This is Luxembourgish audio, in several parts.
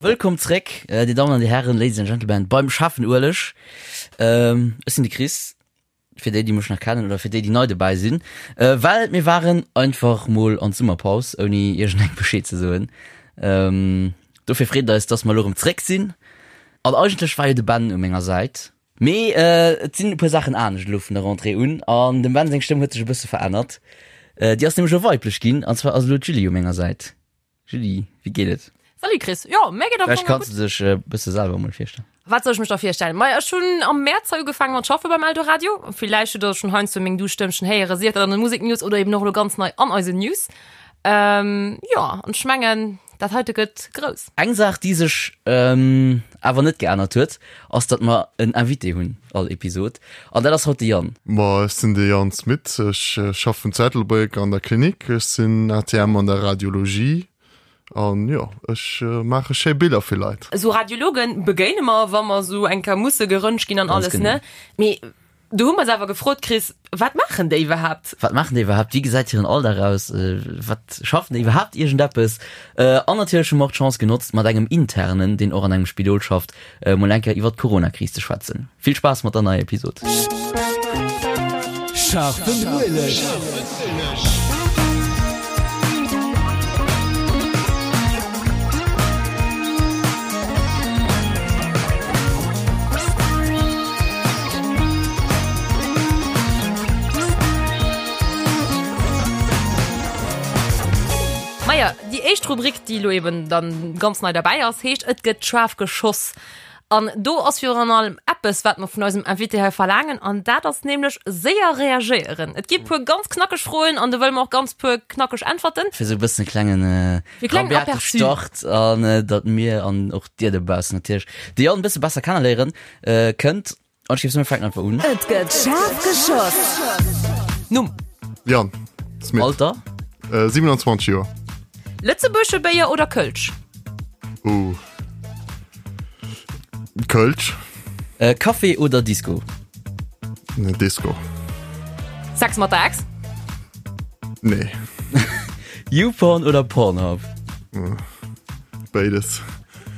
Wëllkomm zréck, Dir Dammen an Dir Hären, Ladies and Gentlemen, beim Schaarfen Ueleg. Ech sinn de Chris, fir déi, déi mech nach kennen oder fir déi, déi nei dobäi sinn, well mir waren einfach mol an d'Summerpaus, ouni iergendengem Bescheed ze soen. Dofir freet et eis, dass mer elo erëm zréck sinn. An eigentlech war jo de Ben u menger Säit, mee et sinn e puer Saachen anescht elo vun der Rentrée un an dem Ben seng Stëmm huet sech e bësse verännert. Déi ass nämlech elo weiblech ginn, an zwar ass elo d'Julie u menger Säit. Julie, wéi geet et? Salut Chris, jo mär geet am Fong gutt. Vläicht kanns de dech e bësse selwer emol virstellen. Wat soll ech mech da virstellen? Maja, ech hunn am Mäerz hei ugefaangen mat schaffe beim Eldoradio. Villäicht hutt der schonn heiansdo meng duuss Stëmmchen héieren, sief dat an de Museknews oder eben och elo ganz nei an eisen News. Jo, an ech mengen, dat heite gëtt grouss. Eng Saach, déi sech awer net geännert huet, ass, datt mer en Invité hunn all Episod, an dat ass haut de Yann. Ma ech sinn de Yann Smit, ech schaffen zu Ettelbréck an der Klinik, ech sinn ATM an der Radiologie an jo, ech maache schéi Biller fir Leit. Esou Radiologen begéine mer, wa mer esou eng Kéier musse geröntgt ginn an alles, ne? Mee Do hu mer se awer gefrot, Chris, wat maachen déi iwwerhaapt? Wat maachen déi iwwerhaapt? Wéi gesäit hiren Alldag aus? Wat schaffen déi iwwerhaapt iergendeppes? An natierlech hu mer och d'Chance genotzt, mat engem Internen, deen och an engem Spidol schafft, mol eng Kéier iwwer d'Corona-Kris ze schwätzen. Vill Spaass mat der neier Episod! Scharfen Ueleg. Maja, déi éischt Rubrik, déi elo eben dann ganz nei derbäi ass, heescht Et gëtt schaarf geschoss. An do ass virun allem eppes, wat mer vun eisem Invité hei verlaangen, an dat ass nämlech séier reagéieren. Et gi puer ganz knackeg Froen an do wëlle mer och ganz puer knackeg Äntwerten. Fir esou e bëssen e klengen E klengen rabiate Aperçu. Start an datt mir an och dir dobaussen natierlech de Yann e bësse besser kenneléieren kënnt. An ech géif soen, mir fänken einfach un. Et gëtt schaarf geschoss. Numm. Yann Smit. Alter. 27 Joer. Lëtzebuergesche Béier oder Kölsch? Uh. Kölsch. Äh, Café oder Disco? Ne, Disco. Sex mat der Ex? Nee. YouPorn oder Pornhub? Béides.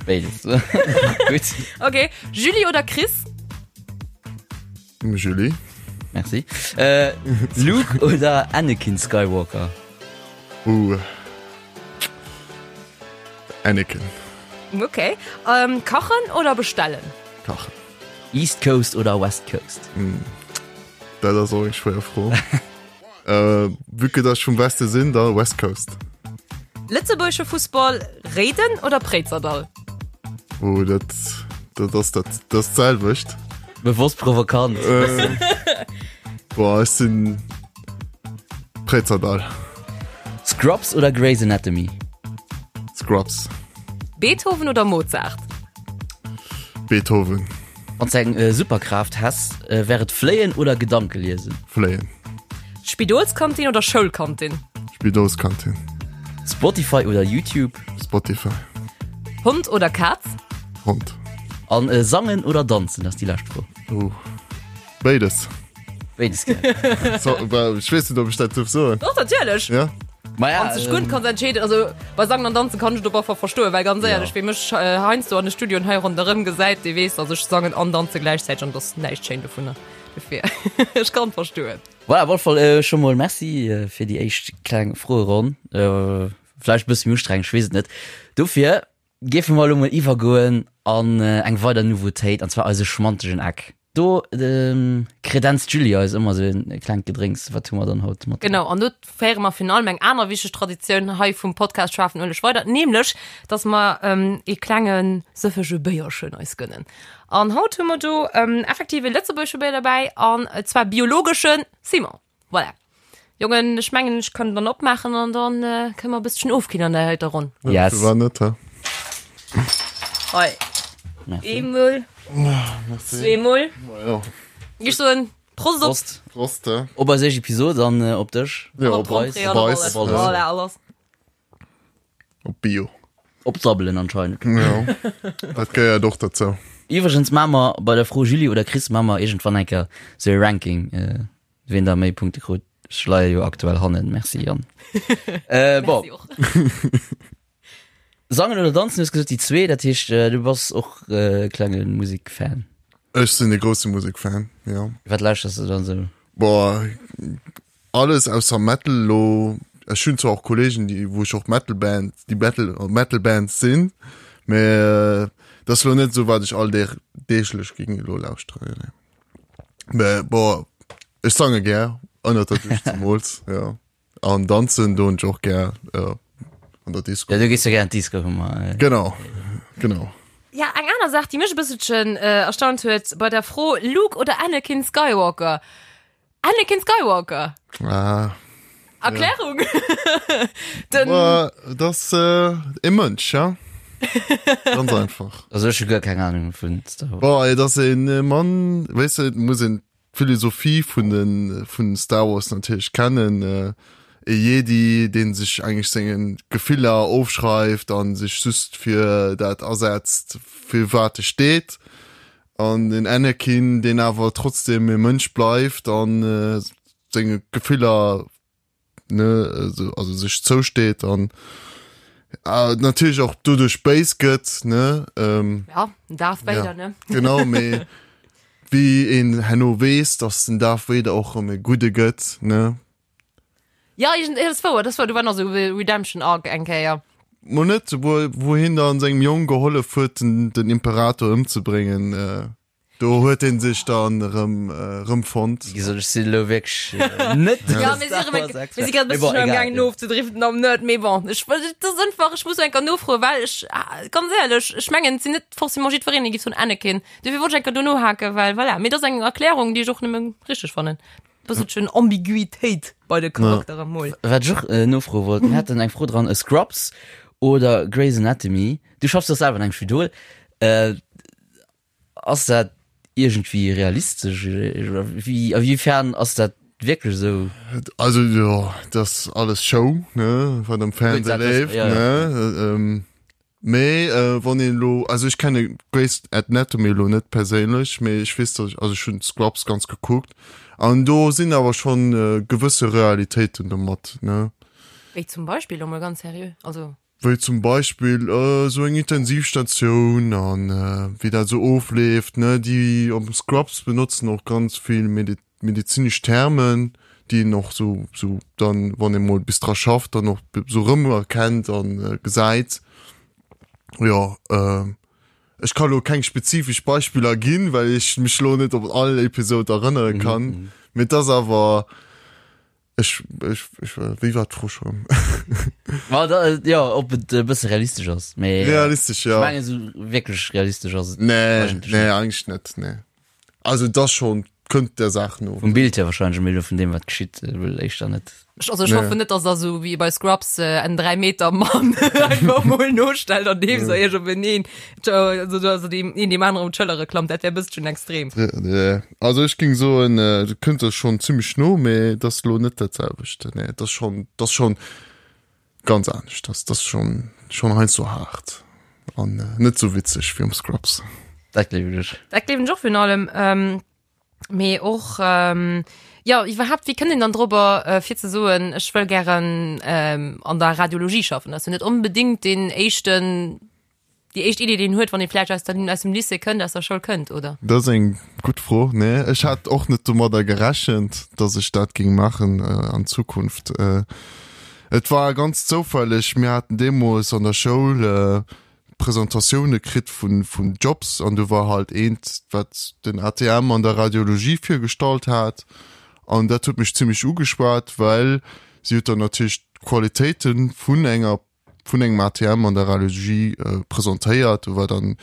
Béides. Gutt. Okay. Julie oder Chris? Julie. Merci. Äh, Luke oder Anakin Skywalker? Uh. Anakin. Okay. Ähm, kachen oder bestellen? Kachen. East Coast oder West Coast? Mm. Dat ass och eng schwéier Fro. äh, vu que dass ech vum Weste sinn, da West Coast. Lëtzebuergesche Fussball, Réiden oder Préizerdall? Oh, dat, dat ass dat, dat ass d'selwecht. Bewosst provokant. Äh, boah, ech sinn Préizerdall. Scrubs oder Grey's Anatomy? Scrubs. Beethoven oder Mozart? Beethoven. Wann s eng Superkraaft häss, wär et fléien oder Gedanke liesen? Fléien. Spidolskantin oder Schoulkantin? Spidolskantin. Spotify oder YouTube? Spotify. Hond oder Kaz? Hond. An sangen oder danzen, dat ass déi lescht Fro. Oh. Béides. Béides gär. So, well, ech weess net, ob ech dat duerf soen. Doch, natierlech. Ja? Ma ja, Wann s dech gutt kanns entscheeden. Also bei Sangen an Danzen kann ech et op alle Fall verstoen, well ganz éierlech, Ja. wee mech äh, heiansdo an de Studioen hei ronderëm gesäit, dee weess, dass ech sangen an danze gläichzäiteg an dass näischt schéin dovunner. Dofir, ech kann verstoen. Voilà, op alle Fall äh, scho mol Merci äh, fir déi éischt kleng Froeronn. Äh, vläicht e bësse méi ustrengend, ech weess et net. Dofir géife mer elo mol iwwergoen an äh, eng weider Nouveautéit, an zwar eise schmantegen Eck. Do kredenzt d'Julie eis ëmmer sou e klengt Gedrénks. Wat hu mer dann haut mat? Genau, an do féiere mer virun allem eng aner wichteg Traditioun hei vum Podcast Schaarfen Ueleg weider, nämlech dass mer ee klenge sëffege Béierchen eis gënnen. An haut hu mer do effektiv e lëtzebuergesche Béier derbäi, an zwar biologesche Simon. Voilà. Jongen, ech mengen, ech kann dann opmaachen an dann äh, kënne mer e bësschen ofkillen an der heiter Ronn. Yes. War net, hä? Hei. Eemol, zweemol. Ja. Ech soen Prost op. Prost. Prost, hä? Op eis éischt Episod an äh, op dech. Ja, Op op eis. d'Rentrée an op Op eis. alles. Op alles. Voilà, alles. Op Bio. Op d'Sabbelen anscheinend. Ja. Dat gehéiert och dozou. Iwwregens maache mer bei der Fro Julie oder Chris maache mer iergendwann eng Kéier sou e Ranking. Äh, Ween da méi Punkte krut, ech leie jo aktuell hannen. Merci Yann. Äh, bon. Merci och. Sangen oder danzen, du hues gesot déi zwee, dat heescht du bass och e klenge Musikfan. Ech sinn e grousse Musikfan, jo. Wat lauschters du dann sou? Boah, alles ausser Metal lo. Ech hunn zwar och Kollegen, déi wou ech och Metal Band, déi Metal Metal Bands sinn, mä dat ass lo net esou wat ech all Deeg deeglech géing elo lauschteren, nee. Mä boah, ech sange gär, ënnert der Dusch zemools, jo. An danzen doen ech och gär äh, an der Disco. Ja, du gees jo gär an d'Disco, hu mer. Äh. Genau, genau. Ja, eng aner Saach, déi mech e bësselchen äh, erstaunt huet bei der Fro Luke oder Anakin Skywalker. Anakin Skywalker. Ah. Erklärung? Ja. Den Boah, das äh, e Mënsch, ja. Ganz einfach. Also ech hu guer keng Ahnung vun Star Wars. Boah, ey, das een äh, Mann, weißt du, muss een d'Philosophie vun de vun Star Wars natierlech kennen, e Jedi deen sech eigentlech senge Gefiller ofschreift an sech just fir dat asetzt fir wat e steet, an den Anakin deen awer trotzdem e Mënsch bleift an senge Gefiller ne also, also sech zousteet an äh, natierlech och doduerch béis gëtt ne ähm, ja Darth Vader ja, ne genau mee wéi een herno weess dass den Darth Vader och erëm e gudde gëtt ne ja ich, das war das war du war nach so Redemption Arc eng Kéier Mo net wou wou hien dann sengem Jong gehollef huet den, den Imperator ëmzebréngen äh, Do huet een sech dann erëm erëm fonnt. Wéi gesot, ech sinn elo wierklech net de Ja, mir si erëm eng, mir si grad e bësselchen am gaangen ofzedriften am Nerd, mee bon, ech, et ass einfach, ech muss eng Kéier nofroen, well ech, ganz éierlech, ech mengen, et sinn net forcément jiddwereen, dee géif soen Anakin. Dofir wollt ech eng Kéier do nohaken, well voilà, mee et ass eng Erklärung, déi ech och nëmme richteg fannen. Bësselchen Ambiguitéit bei de Charakteren mol. Wat ech och nofroe wollt, mir haten eng Fro dran, Scrubs oder Grey's Anatomy? Du schaffs jo selwer an engem Spidol. Ass dat iergendwéi realistesch oder wéi, a wéifern ass dat wierklech esou? Also jo, dat ass alles Show, ne, wat am Fernseh leeft, ne. Mee wann een elo, also ech kenne Grey's Anatomy elo net perséinlech, mee ech weess, datt ech, also ech hunn Scrubs ganz gekuckt an do sinn awer schonn gewësse Realitéiten domat, ne. Wéi zum Beispill, elo mol ganz seriö, also. Wéi zum Beispill esou eng Intensivstatioun an wéi dat esou ofleeft, ne. Déi am Scrubs benotzen och ganz vill medezinesch Termen, déi een och esou esou dann, wann ee mol bis dra schafft, dann och esou erëmerkennt a gesäit. Jo, ech ka lo keng spezifesch Beispiller ginn, well ech mech lo net op all Episod erënnere kann, mee et ass awer Ech, ech, ech, wéi war d'Fro schon? Ma da, ja, ob et e bësse realistesch ass. Mee, realistesch, ja. Ech mengen, esou wierklech realistesch ass et nee, eigentlech nee, net. Eigentlich net, nee. Also dat schon kënnt der Saach no. Vum Bild hier wahrscheinlech, mee elo vun deem wat geschitt, wuel éischter net. Ech, also ech nee. hoffen net, dass der sou wéi bei Scrubs äh, en 3 Meter Mann einfach mol nostellt an deem se iech op eneen, also, also deem een deem aneren op d'Schëllere klammt, dat wär e bësschen extrem. Nee. Also ech ging soen, du kënnt der schon zimmlech no, mee et ass lo net dat selwecht. Nee, et ass schon, et ass schon ganz anescht. Dat ass schon, schon heiansdo haart an net sou witzeg wéi am Scrubs. Dat gleewen ech. Dat gleewen ech och virun allem. Mee och, jo, iwwerhaapt, wéi kënnt een dann dorobber, fir ze soen, ech wëll gären an der Radiologie schaffen? Dat ass jo net onbedéngt deen éischten Déi éischt Idee, déi een huet, wann ee vläicht aus der, aus dem Lycée kënnt, aus der Schoul kënnt, oder? Dat ass eng gutt Fro. Nee, ech hat och net domadder gerechent, datt ech dat géing maachen an Zukunft. Et war ganz zoufälleg, mir haten deemools an der Schoul Presentatioune kritt vun, vun Jobs an do war halt eent, wat den ATM an der Radiologie virgestallt hat an dat huet mech zimmlech ugeschwat, well si huet dann natierlech d'Qualitéite vun enger vun engem ATM an der Radiologie presentéiert. Do war dann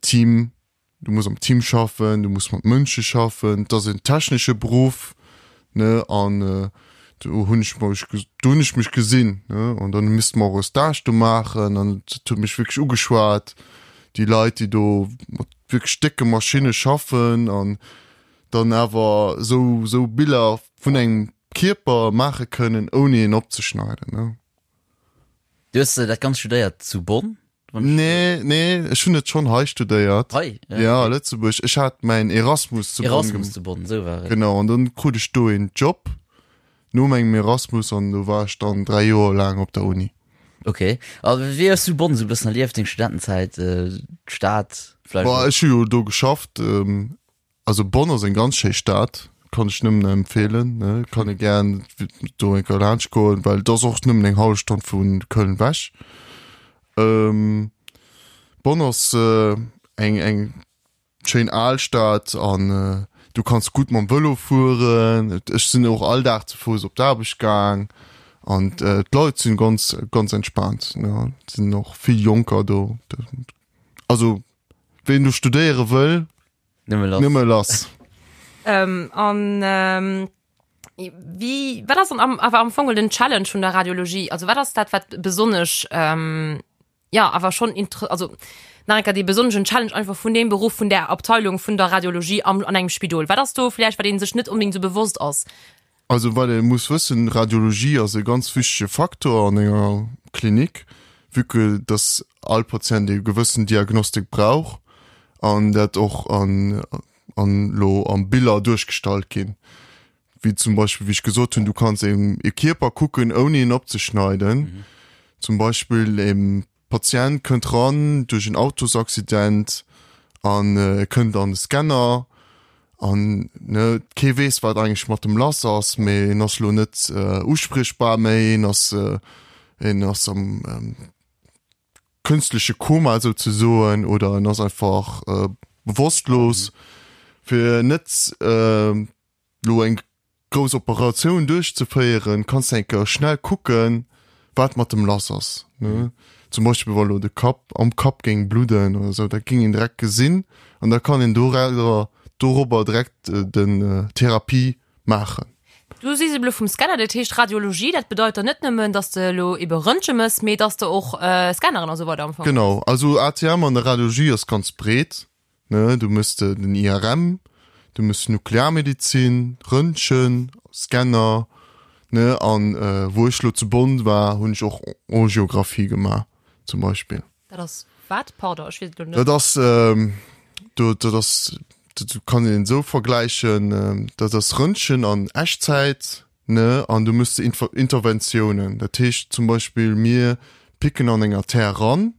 Team, du muss am Team schaffen, du muss mat Mënsche schaffen, et ass en technesche Beruff, ne, an do hunn ech mech, do hunn ech mech gesinn, ne, an dann misste mer och e Stage do maachen an et huet mech wierklech ugeschwat, déi Leit, déi do mat wierklech décke Maschinne schaffen an dann awer esou, esou Biller vun engem Kierper maache kënnen, ouni en opzeschneiden, ne. Du hues dat Ganzt studéiert zu Bonn? Nee, nee, ech hunn et schonn hei studéiert. Hei? Ja, ja a Lëtzebuerg. Ech hat mäin Erasmus zu Bonn. Erasmus zu Bonn, esou war et. Genau, an dann krut ech do een Job no mengem Erasmus an do war ech dann 3 Joer laang op der Uni. Ok, a wéi hues du Bonn esou e bëssen erlieft, deng Studentenzäit, d'Stad vläicht? Boah, ech hu jo do geschafft. Also Bonn ass eng ganz schéi Stad, kann ech nëmmen empfehlen, ne, kann ee gären do eng Kéier laanscht goen, well et ass och nëmmen eng hallef Stonn vu Köln wech. Bonn ass eng eng schéin al Stad an du kanns gutt mam Vëlo fueren. Ech sinn och all Dag ze Fouss op d'Aarbecht gaang an d'Leit sinn ganz ganz entspaant, ne, et sinn och vill Jonker do. Also ween do studéiere wëll, Nëmme lass. Nëmme lass. Ähm, an ähm, wie, wat ass am, awer am Fong den Challenge vun der Radiologie? Also wat ass dat, wat besonnesch, ähm, ja, awer schon inter also nach enker dee besonneschen Challenge einfach vun deem Beruff, vun der Abteilung vun der Radiologie am, an engem Spidol? Wat ass do vläicht, wat een sech net unbedingt sou bewosst ass? Also wat ee muss wëssen, Radiologie ass e ganz wichtege Faktor an enger Klinik, vue que dass all Patient e gewëssen Diagnostik brauch an dat och an an elo am Biller duerchgestallt ginn. Wéi zum Beispill, wéi ech gesot hunn, du kanns e Kierper kucken ouni en opzeschneiden. Zum Beispill e Patient kënnt ran duerch en Autosaccident an e kënnt an de Scanner an ne kee weess wat eigentlech mat dem lass ass, mee en ass lo net uspriechbar méi, en ass en ass am künstleche Koma souzesoen oder en ass einfach bewosstlos. Fir net lo eng grouss Operatioun duerchzeféieren, kanns de eng Kéier schnell kucken, wat mat dem lass ass, ne? Zum Beispill wa lo de Kapp am Kapp géing bludden oder sou, dat géing een direkt gesinn an da kann een dorauser dorobber direkt den Therapie maachen. Du sees elo vum Scanner, dat heescht Radiologie, dat bedeit dann net nëmmen, dass de elo ebe Röntge mëss, mee dass de och Scanneren a sou weider am Fong. Genau, also ATM an der Radiologie ass ganz breet. Ne, du mëss de den IRM, du mëss Nuklearmedizin, Röntgen, Scanner, ne, an wou ech lo zu Bonn war, hunn ech och Angiographie gemaach zum Beispill. Dat ass wat? Pardon, ech weess et elo net. Dat ass, do, dat ass, dat kann een esou vergläichen, dat ass Röntgen an Echtzäit, ne, an du mëss de Interventiounen. Dat heescht zum Beispill, mir picken an eng Artère ran,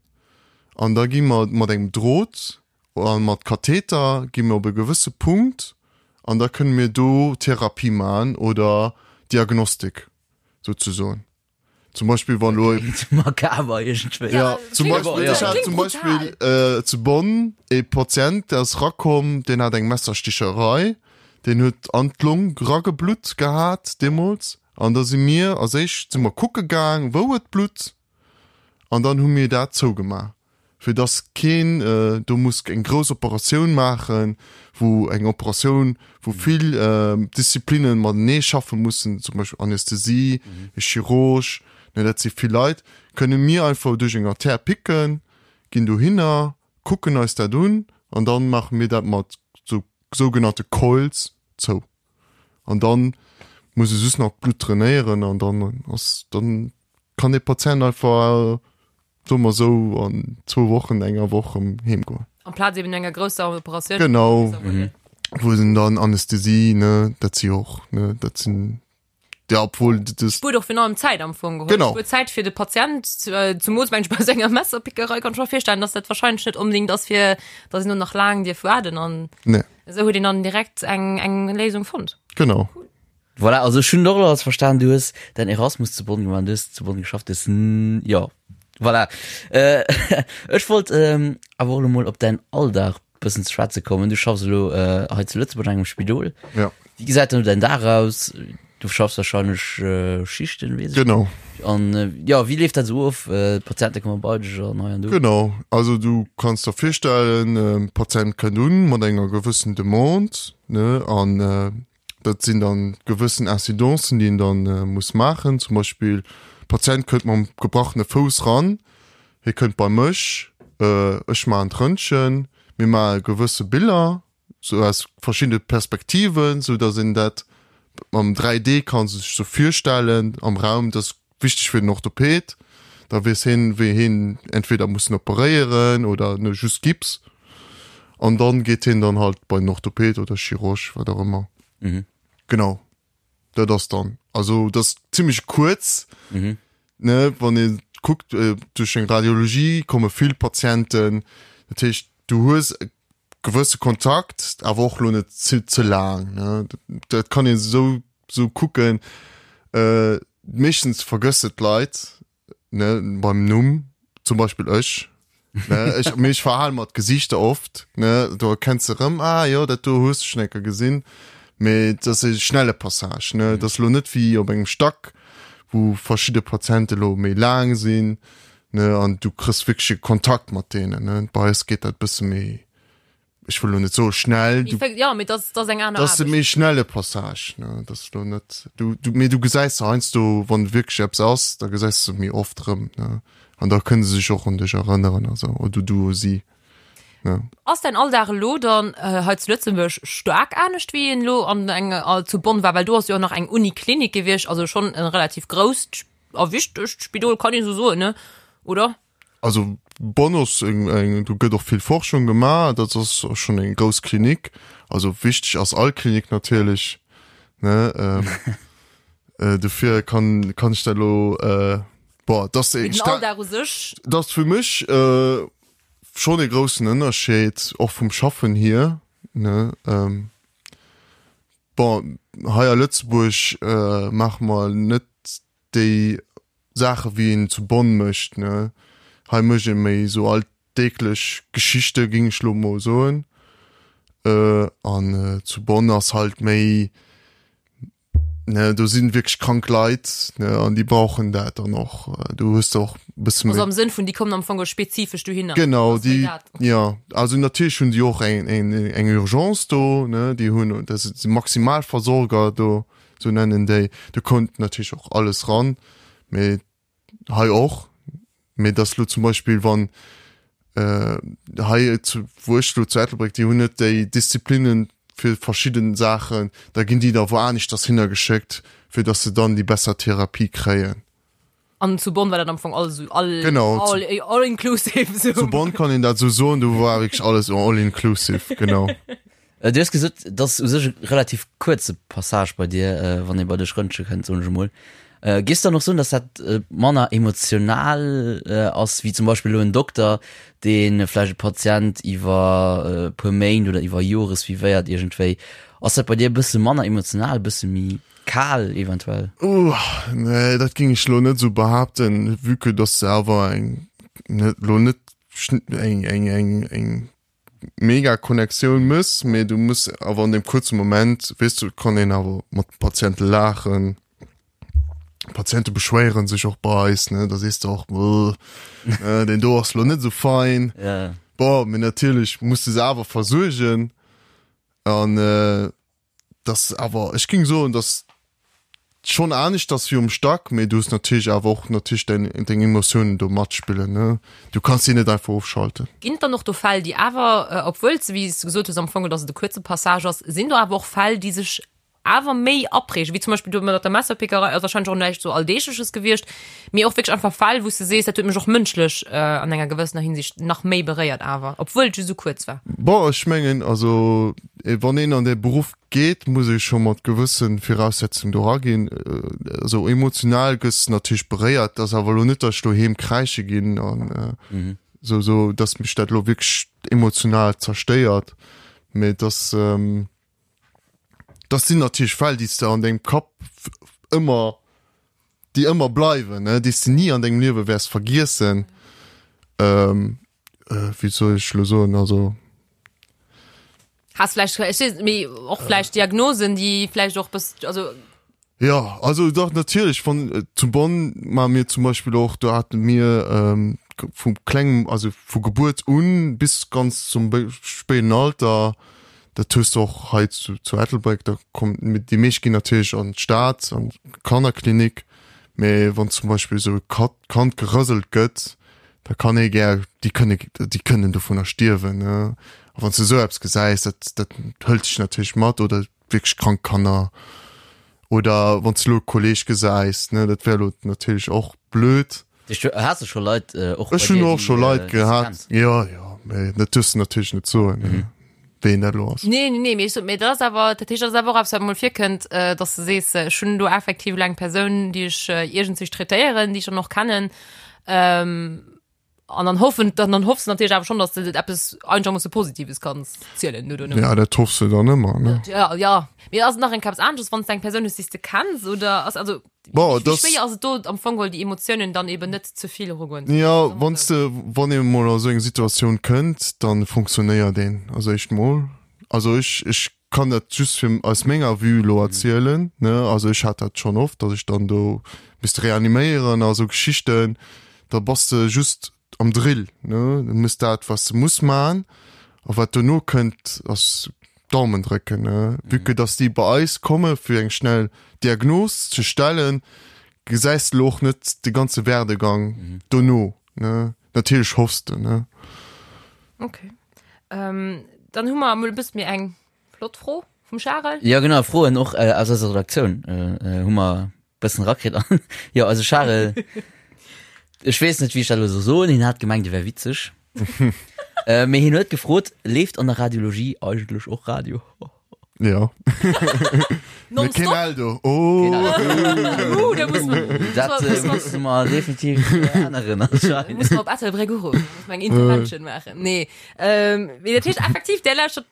An da gi mer mat engem Drot a mat Katheter gi mer op e gewësse Punkt an da kënne mir do Therapie maachen oder Diagnostik souzesoen. Zum Beispill wann elo. Klingt makaber iergendwéi. Ja, zum Beispill, ech hat zum Beispill zu Bonn e Patient, dee ass rakomm, deen hat eng Messersticherei, deen huet an d'Long rageblutt gehat deemools. An da si mir als éischt si mer kucke gaang, wou et blutt. An dann hu mir dat zougemaach, fir dass keen do muss eng grouss Operatioun maachen, wou eng Operatioun, wou vill Disziplinne matenee schaffe mussen, zum Beispill Anästhesie, e Chirurg, ne, dat si vill Leit, kënne mir einfach duerch eng Artère picken, ginn dohinner, kucken eis dat un an dann maache mir dat mat sou sougenannte Coils zou. An dann muss e just nach d'Blutt drainéieren an dann ass dann kann dee Patient einfach, soe mer esou, an zwou Wochen, enger Woch erëm heem goen. Amplaz eben enger grousser Operatioun. Genau, wou en dann Anästhesie, ne, dat si jo och, ne, dat sinn, ja, obwuel dat. Spuert och virun allem Zäit am Fong geholl. Genau. Spuert Zäit fir de Patient, zumools mengen ech bei esou enger Messerpickerei kann ech mer virstellen, dass dat wahrscheinlech net onbedéngt ass fir, dass een do nach laang dierf waarden an Nee. esou huet een dann direkt eng, eng Léisung fonnt. Genau. Cool. Voilà, also ech hunn och elo alles verstan, du hues däin Erasmus zu Bonn gemaach, du hues zu Bonn geschafft, du hues, jo, voilà. Ech wollt awer och elo mol op däin Alldag bëssen ze schwätze kommen. Du schaffs elo hei zu Lëtzebuerg an engem Spidol. Ja. Wéi gesäit dann däin Dag aus? Du schaffs wahrscheinlech Schichten, weess ech. Genau. An jo, wéi leeft dat esou of? D'Patiente komme bei dech an hei an do? Genau, also du kanns der virstellen, e Patient kënnt un mat enger gewëssen Demande, ne, an Dat sinn dann gewëssen Incidencen, déi een dann muss maachen. Zum Beispill, Patient kënnt mam gebrachene Fouss ran, hie kënnt bei mech, ech maachen d'Röntgen, mir maache gewësse Biller, sou aus verschiddene Perspektiven, sou datt een dat mam 3D ka sech sou virstellen am Raum. Dat ass wichteg fir den Orthoped, da weess hien, wéi hien entweder muss en operéieren oder just Gips. An dann geet hien dann halt bei den Orthoped oder Chirurg, wat och ëmmer. Mhm. Genau. Dat ass dann. Also dat ass zimmlech kuerz, Mhm. ne, wann ee. Kuckt, duerch eng Radiologie komme vill Patienten, dat heescht du hues e gewësse Kontakt, awer och lo net ze ze laang, ne. Dat kann een esou esou kucken. Meeschtens vergësse d'Leit, ne, beim Numm, zum Beispill ech, ne, ech, mee ech verhale mer d'Gesiichter oft, ne, do erkenns de erëm, ah jo, dat do hues de schonn eng Kéier gesinn, mee et ass e schnelle Passage, ne, et ass elo net wéi op engem Stack, wou verschidde Patiente elo méi laang sinn, ne, an du kriss wierklech e Kontakt mat deenen, ne, bei eis geet dat e bësse méi ech wëll lo net soe schnell, du, Ja, mee dat ass eng aner dat ass e Aarbecht. méi schnelle Passage, ne, dat ass lo net, du, du, mee du gesäis se heiansdo, wann wierklech eppes ass, da gesäis de se méi oft erëm, ne, an da kënne se sech och un dech erënneren a sou, oder du u si, ne. Ass däin Alldag elo dann hei zu Lëtzebuerg staark anescht wéi en elo an eng zu Bonn war? Well do ass jo och nach eng Uniklinik gewiescht, also schonn e relativ grousst a wichtegt Spidol, kann ee sou soen, ne, oder? Also Bonn ass eng, eng, do gëtt och vill Forschung gemaach, dat ass och schonn eng grouss Klinik. Also wichteg ass all Klinik natierlech, ne? Ähm, äh, dofir kann, kann ech dat elo, äh, boah, dat ass, Mee den Alldag u sech? Dat ass fir mech äh, schonn e groussen Ënnerscheed, och vum Schaffen hier, ne? Ähm, bon, hei a Lëtzebuerg äh, maache mer net déi Saache wéi een zu Bonn mécht, ne. Hei mécht ee méi esou alldeeglech Geschichte géing ech lo mol soen. An zu Bonn ass halt méi, ne, do sinn wierklech krank Leit, ne, an déi brauchen dat dann och. Do hues de och e bësse méi. Also am Sënn vun déi kommen am Fong spezifesch dohinner. Genau, déi, jo. Also natierlech hunn déi och eng, eng, eng Urgence do, ne, déi hunn, dat si Maximalversorger do. Sou nennen déi. Do konnt natierlech och alles ran, mee hei och. Mee dass lo zum Beispill wann hei zu wou ech lo zu Ettelbréck, déi hunn net déi Disziplinnen fir verschidden Saachen, da ginn déi da wou aneschters hinner geschéckt, fir dass se dann déi besser Therapie kréien. An zu Bonn war dat am Fong alles esou all, Genau, all, all inclusive. Zu Bonn kann een dat esou soen, do war wierklech alles all inclusive, genau. Du hues gesot, et ass u sech e relativ kuerze Passage bei dir, wann ee bei dech rëntge kënnt, soen ech emol. Géifs du dann och soen, datt dat manner emotional ass wéi zum Beispill elo en Dokter, dee vläicht e Patient iwwer e puer Méint oder iwwer Jore suivéiert iergendwéi? Ass dat bei dir e bësse manner emotional, e bësse méi Kal eventuell? Ouh, nee, dat géing ech lo net esou behaapten, vue que dass se awer eng, net, lo net eng, eng, eng, eng mega Connectioun mëss, mee du muss awer an deem kuerze Moment, weess du, kann een awer mat de Patiente laachen. D'Patiente beschwéieren sech och bei eis, ne, da sees de och, Buh, deen do ass lo net esou fein. Ja. Bon, mee natierlech muss de se awer versuergen an, Dass awer, ech géing soen, dass schonn anescht ass wéi um Stack, mee du hues natierlech awer och natierlech däin, deng Emotiounen do matspillen, ne. Du kanns déi net einfach ofschalten. Ginn et dann och do Fäll, déi awer, obwuel s de, wéi s de gesot hues, am Fong, dass et e kuerze Passage ass, sinn do awer och Fäll, déi sech awer méi aprägen, wéi zum Beispill do mat der Messerpickerei, ass wahrscheinlech och näischt sou Alldeegleches gewiescht, mee och wierklech einfach Fäll, wou s de sees, dat huet mech och mënschlech an enger gewëssener Hinsicht nach méi beréiert awer, obwuel et just esou kuerz war. Bon, ech mengen, also wann een an dee Beruff geet, muss ee scho mat gewësse Viraussetzungen do eraginn. Also emotional gëss de natierlech beréiert, et ass awer elo net, datt ech doheem kräische ginn an esou, esou datt mech dat elo wierklech emotional zerstéiert, mee et ass, Dat sinn natierlech Fäll, déi s de an dengem Kapp ëmmer, déi ëmmer bleiwen, ne, déi s de ni an dengem Liewe wäers vergiessen. Ähm, äh, wéi soll ech lo soen, also. Has vläicht, ech weess net, mee och vläicht Diagnosen, déi vläicht och bëss, also. Jo, also dach natierlech, wann zu Bonn maache mir zum Beispill och, do hate mir vu klengem, also vu Gebuert un bis ganz zum spéiden Alter, dat hues de och hei zu zu Ettelbréck, da kommen, déi meescht ginn natierlech an d'Stad, an d'Kannerklinik, mee wann zum Beispill esou e Kand gerëselt gëtt, da kann ee gär, déi kënne, déi kënnen dovunner stierwen, ne, a wann s de esou eppes gesäis, dat dat hëlt dech natierlech mat oder wierklech krank Kanner oder wann s de elo e Kolleeg gesäis, ne, dat wär elo natierlech och blöd. Du has de scho Leit och Ech hunn och scho Leit gehat, jo, jo, mee dat duerfs de natierlech net soen, ne, ween dat elo ass. Nee, nee, nee, mee ech sot, mee dat ass awer, dat heescht, dat ass awer och eppes, wat emol virkënnt, dass de sees, ech hunn do effektiv elo eng Persoun, déi ech iergendzwich traitéieren, déi ech dann och kennen. Ähm, an dann hoffen dann, dann hoffst du natierlech awer schon, dass du eppes einigermoosse Positives kanns zielen no dono. Ja, dat hoffs du dann ëmmer, ne? Ja, ja. Mee ass et nach eng eppes anesches, wann s du eng Persoun hues, déi s de kenns oder ass also Bon, wéi das schwéier ass et do am Fong geholl déi Emotiounen dann eben net ze vill erugoen? Ja, wann s de, wann ee mol a sou eng Situatioun kënnt, dann funktionéiert een also éischt mol. Also ech, ech kann dat just fir aus menger Vue elo erzielen, ne, also ech hat dat schonn oft, datt ech dann do misst reaniméieren a sou Geschichten, da bass de just am Drill, ne, du muss dat wat s de muss man a wat dono kënnt ass Daumen drécken, ne, vue que datt déi bei eis komme fir eng schnell Diagnos ze stellen, gesäis de elo och net de ganze Werdegang dono, ne, natierlech hoffs de, ne. Okay. Ähm, dann hu mer emol e bësse méi eng flott Fro vum Charel. Ja genau, Froen och äh, aus eiser Redaktioun äh, äh, hu mer bëssen rakritt an jo also Charel ech weess net wéi ech dat elo soll soen, hien hat gemengt e wär witzeg. äh, mee hien huet gefrot, leeft an der Radiologie eigentlech och Radio? Ja. Nonstop. Keen Eldo. Oh. Uh, da muss man, Dat muss äh, man, musse mer definitiv äh, änneren anscheinend. muss man op Ettelbréck uruffen, muss man eng Intervention maachen. Nee, ähm, mee dat heescht effektiv, der lauschtert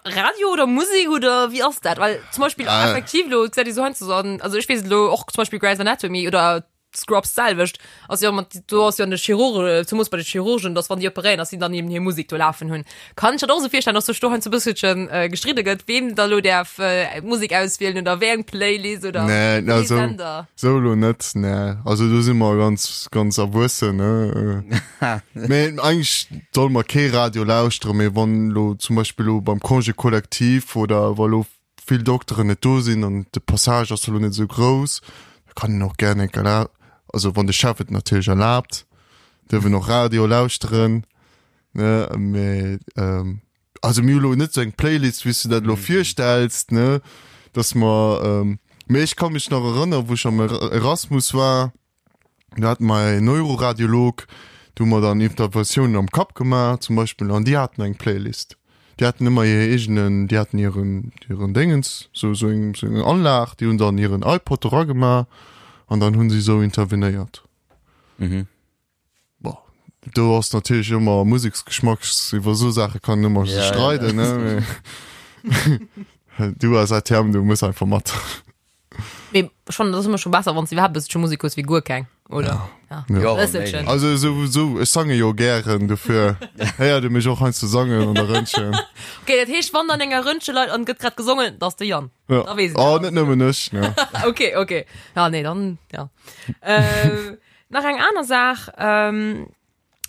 Radio oder Musik oder wie ass dat? Well zum Beispiel Ah. effektiv lo, gesäit ee sou heiansdo so an, also ech weess et lo och zum Beispiel Grey's Anatomy oder Scrubs d'selwecht ass jo mat do ass jo an de Chirurge zemoos bei de Chirurgen, dass wann déi operéieren, dass si dann eben hir Musek do lafen hunn. Kann ech dat och esou virstellen, dass sech do heiansdo e bësselchen äh, gestridde gëtt, ween da lo däerf äh, Musek auswielen oder wéi eng Playlist oder Nee, wéi ee also Sender. sou elo net, nee. Also do si mer ganz, ganz erwuessen, ne. Mee eigentlech solle mer kee Radio lauschteren, mee wann elo zum Beispill elo beim Congé collectif oder wa lo vill Dokteren net do sinn an de Passage ass elo net esou grouss, da kann een och gären eng Kéier, also wann de Chef et natierlech erlaabt, duerf een och Radio lauschteren, ne, mee also mir hu lo net esou eng Playlist, wéi s du dat elo virstells, ne, dass mer, mee ech ka mech nach erënneren, wou ech am Erasmus war, Do hate mer en Neuroradiolog, do hu mer dann Interventiounen am Kapp gemaach zum Beispill an déi haten eng Playlist. Déi haten ëmmer hir eegenen, déi haten hiren, hiren Déngens, sou, sou eng, sou eng Anlag, déi hunn dann hiren iPod eragemaach an dann hu si sou intervenéiert. Mhm. Bon, do ass natierlech ëmmer Museksgeschmack, iwwer esou Saache kann een ëmmer Ja, ja. streiden, ne, mee du als ATM, du muss einfach mat. Mee schon, dat ass ëmmer scho besser, wann s du iwwerhaapt e bësselche Musek hues wéi guer keng, oder? Ja. Ja. Ja, Bësselchen. méi. Also sou, sou, ech sange jo gären, dofir héiert e mech och heiansdo sangen an der Röntgen. Okay, dat heescht, wann an enger Röntgen leit an gëtt grad gesongen, dat ass de Yann. Ja. Da weess een Oh, dat. net nëmmen ech, ne. Okay, okay. Ja, nee, dann, ja. Äh, nach eng aner Saach, ähm,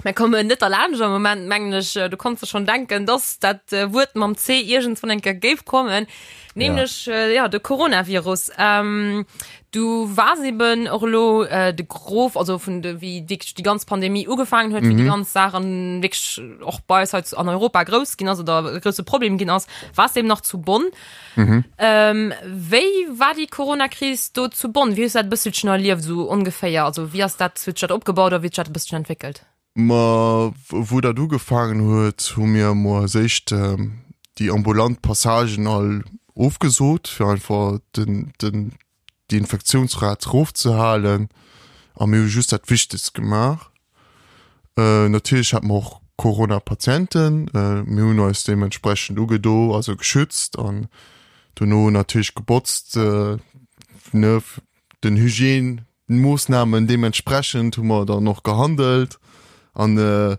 Mir kommen net derlaanscht am Moment, mengen ech, du konns der schon denken, dass dat äh, Wuert mam C iergendswann eng Kéier géif kommen, nämlech ja, äh, ja de Coronavirus. Ähm, du wars eben och elo äh, de Gros, also vun de, wéi wierklech déi ganz Pandemie ugefaangen huet, wéi déi ganz Saach an wierklech och bei eis hei zu- an Europa grouss ginn ass oder e grousse Problem ginn ass, wars de eben nach zu Bonn. Ähm, wéi war déi Corona-Kris do zu Bonn? Wéi hues du dat e bësselchen erlieft, esou ongeféier? Also wéi ass dat, huet sech dat opgebaut a wéi huet sech dat e bësselchen entwéckelt? Ma wou dat ugefaangen huet, hu mir emol als éischt déi ambulant Passagen all ofgesot, fir einfach den, den, déi Infektiounsrat erofzehalen a mir hu just dat Wichtegst gemaach. Natierlech hate mer och Corona-Patienten, mir hunn eis deementsprechend ugedo, also geschützt an dono natierlech gebotzt, ne, den Hygiène-Moossnamen deementsprechend hu mer dann och gehandelt an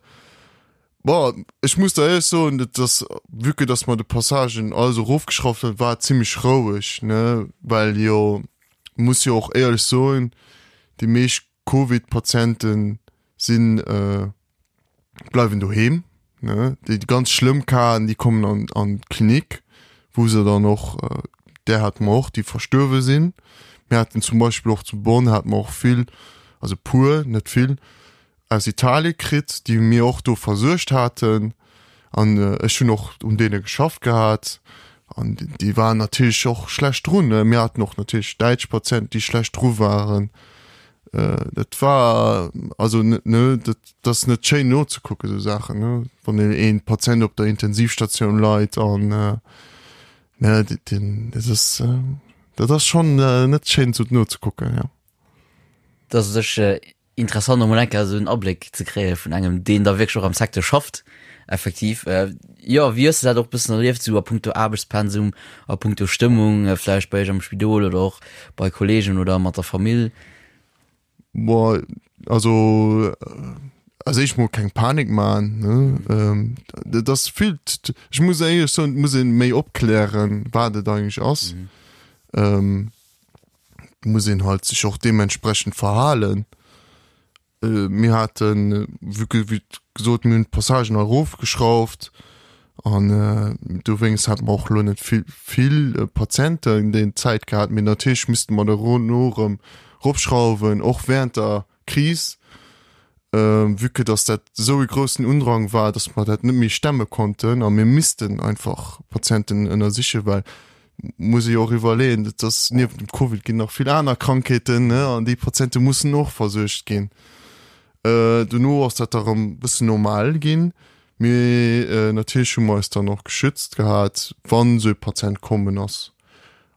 Bon, ech muss der éierlech soen, et ass, vue que dass mer de Passagen alles erofgeschrauft hunn, war et zimmlech roueg, ne, well jo, muss jo och éierlech soen, déi meescht Covid-Patiente sinn, bleiwen doheem, ne, déi ganz schlëmm Casen, déi kommen an an d'Klinik, wou se dann och, där hate mer och, déi verstuerwe sinn. Mir haten zum Beispill och zu Bonn hate mer och vill, also puer, net vill, aus Italie kritt, déi mir och do versuergt haten an ech hunn och un deene geschafft gehat an déi waren natierlech och schlecht drun. Mir haten och natierlech däitsch Patienten, déi schlecht dru waren. Dat war also ne, dat ass net schéin nozekucken, esou Saachen, ne, wann een Patient op der Intensivstatioun leit an ne, deen, dat ass, dat ass schonn net schéin esou nozekucken, jo. Dass sech. Interessant emol eng Kéier esou en Abléck ze kréie vun engem, deen da wierklech och am Secteur schafft, effektiv. Jo, wéi hues de dat och e bëssen erlieft, esou a punkto Aarbechtspensum, a punkto Stëmmung, vläicht bei iech am Spidol oder och bei Kolleegen oder mat der Famill? Boah, also als éischt mol keng Panik maachen, ne. Dat ass vill, ech muss éierlech soen, et muss ee méi opklären, wat et eigentlech ass. Muss een halt sech och deementsprechend verhalen. Mir haten, wéi gesot, mir hunn d'Passagen erofgeschrauft an dowéinst hate mer och elo net vill, vill Patienten déi Zäit gehat. Mee natierlech misste mer dono erëm eropschrauwen, och während der Kris, vue que dass dat esou e groussen Undrang war, dass mer dat net méi stemme konnten a mir missten einfach Patienten ënnersichen, well muss ee jo och iwwerleeën, dat ass niewent dem Covid ginn nach vill aner Krankheeten, ne, an déi Patiente mussen och versuergt ginn. Dono ass dat da erëm e bëssen normal ginn, mee natierlech hu mer eis dann och geschützt gehat, wann esou e Patient kommen ass.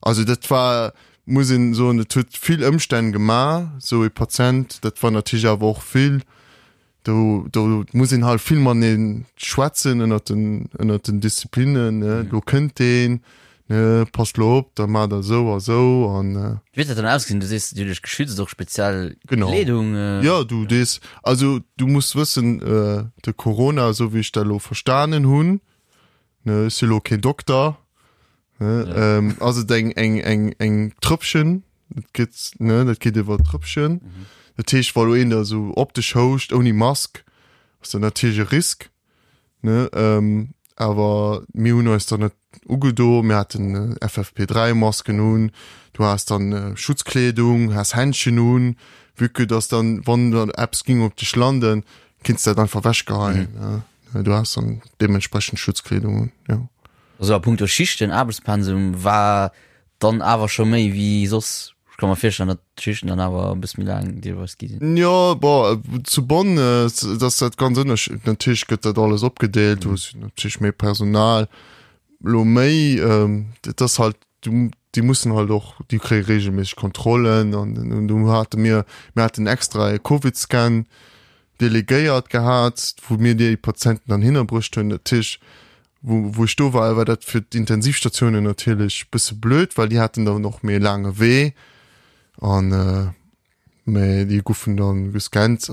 Also dat war, muss een soen, et huet vill Ëmstänn gemaach, esou e Patient. Dat war natierlech awer och vill, do do muss een halt vill matenee schwätzen ënnert den ënnert den Disziplinnen, ne, do kënnt deen, ne, passt lo op, da maacht der esou a sou an. Wéi huet dat dann ausgesinn? Du sees, Dir hutt iech geschützt, och speziell Kleedung? Jo, du dees, also du muss wëssen, de Corona, esou wéi ech dat elo verstanen hunn, ne, ech si lo keen Dokter, Ne, ja. ähm, ass et eng, eng, eng, eng Trëppchen, dat gëtt, ne, dat geet iwwer Trëppchen. Mhm. Dat heescht, wa lo een da sou op dech houscht, ouni Mask, ass dat natierlech e Risk, ne, ähm, awer mir hunn eis dann net ugedo, mir haten FFP3-Masken un, du has dann äh, Schutzkleedung, has Händchen un, vue que dass dann, wann dann eppes ging op dech landen, kinns dat einfach wechgeheien, mhm. ne. Du has dann deementsprechend Schutzkleedung un, ja. Also a punkto Schichten, Aarbechtspensum war dann awer scho méi wéi soss. Ech ka mer virstellen, datt d'Schichten dann awer e bësse méi laang deelweis gi sinn. Jo, bon, zu Bonn ass dat ganz ënnersch-, natierlech gëtt dat alles opgedeelt, du hues natierlech méi Personal, elo méi, et ass halt, du, déi mussen halt och, déi kréie reegelméisseg Kontrollen an do hate mir, mir haten extra e Covid-Scan delegéiert gehat, wou mir déi Patienten dann hinnerbruecht hunn. Dat heescht, wou, wou ech do war, war dat fir d'Intensivstatiounen natierlech bësse blöd, well déi haten dann och méi e laange Wee an mä déi goufen dann gescannt.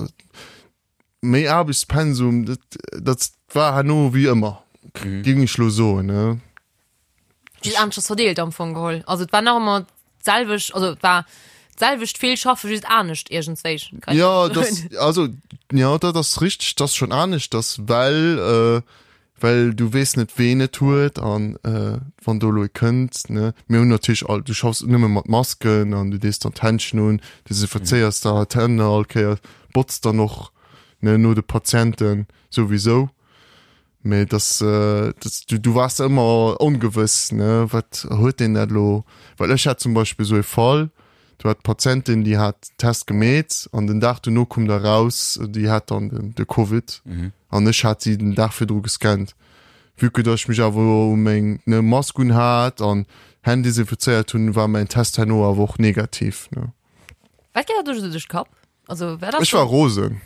Méi Aarbechtspensum, dat, dat war herno wéi ëmmer, géing ech lo soen, ne. Just aneschters verdeelt am Fong geholl. Also et war nach ëmmer d'selwecht, also et war d'selwecht vill schaffe just anescht iergendswéi. Kann ich Ja, das das, also ja, dat ass richteg, dat ass schon aneschters, well äh, well du weess net ween et huet an äh, wann do elo ee kënnt, ne. Mir hunn natierlech all, du schaffs nëmme mat Masken an du dees dann d'Händchen un, desinfizéiers der d'Hänn all Kéier, botz dann och, ne, no de Patienten souwisou. Mee dass, dass du, du waars ëmmer ongewëss, ne, wat huet deen dat elo? Well ech hat zum Beispill esou e Fall, do hat d'Patientin, déi hat Test gemeet an den Dag dono koum da raus, déi hat dann den, de Covid an ech hat si den Dag virdru gescannt. Vue que dass ech mech awer u meng, ne, Mask un hat an Hänn desinfizéiert hunn, war mäin Test herno awer och negativ, ne. Wat geet der do esou duerch de Kapp? Also, wer Ech war rosen.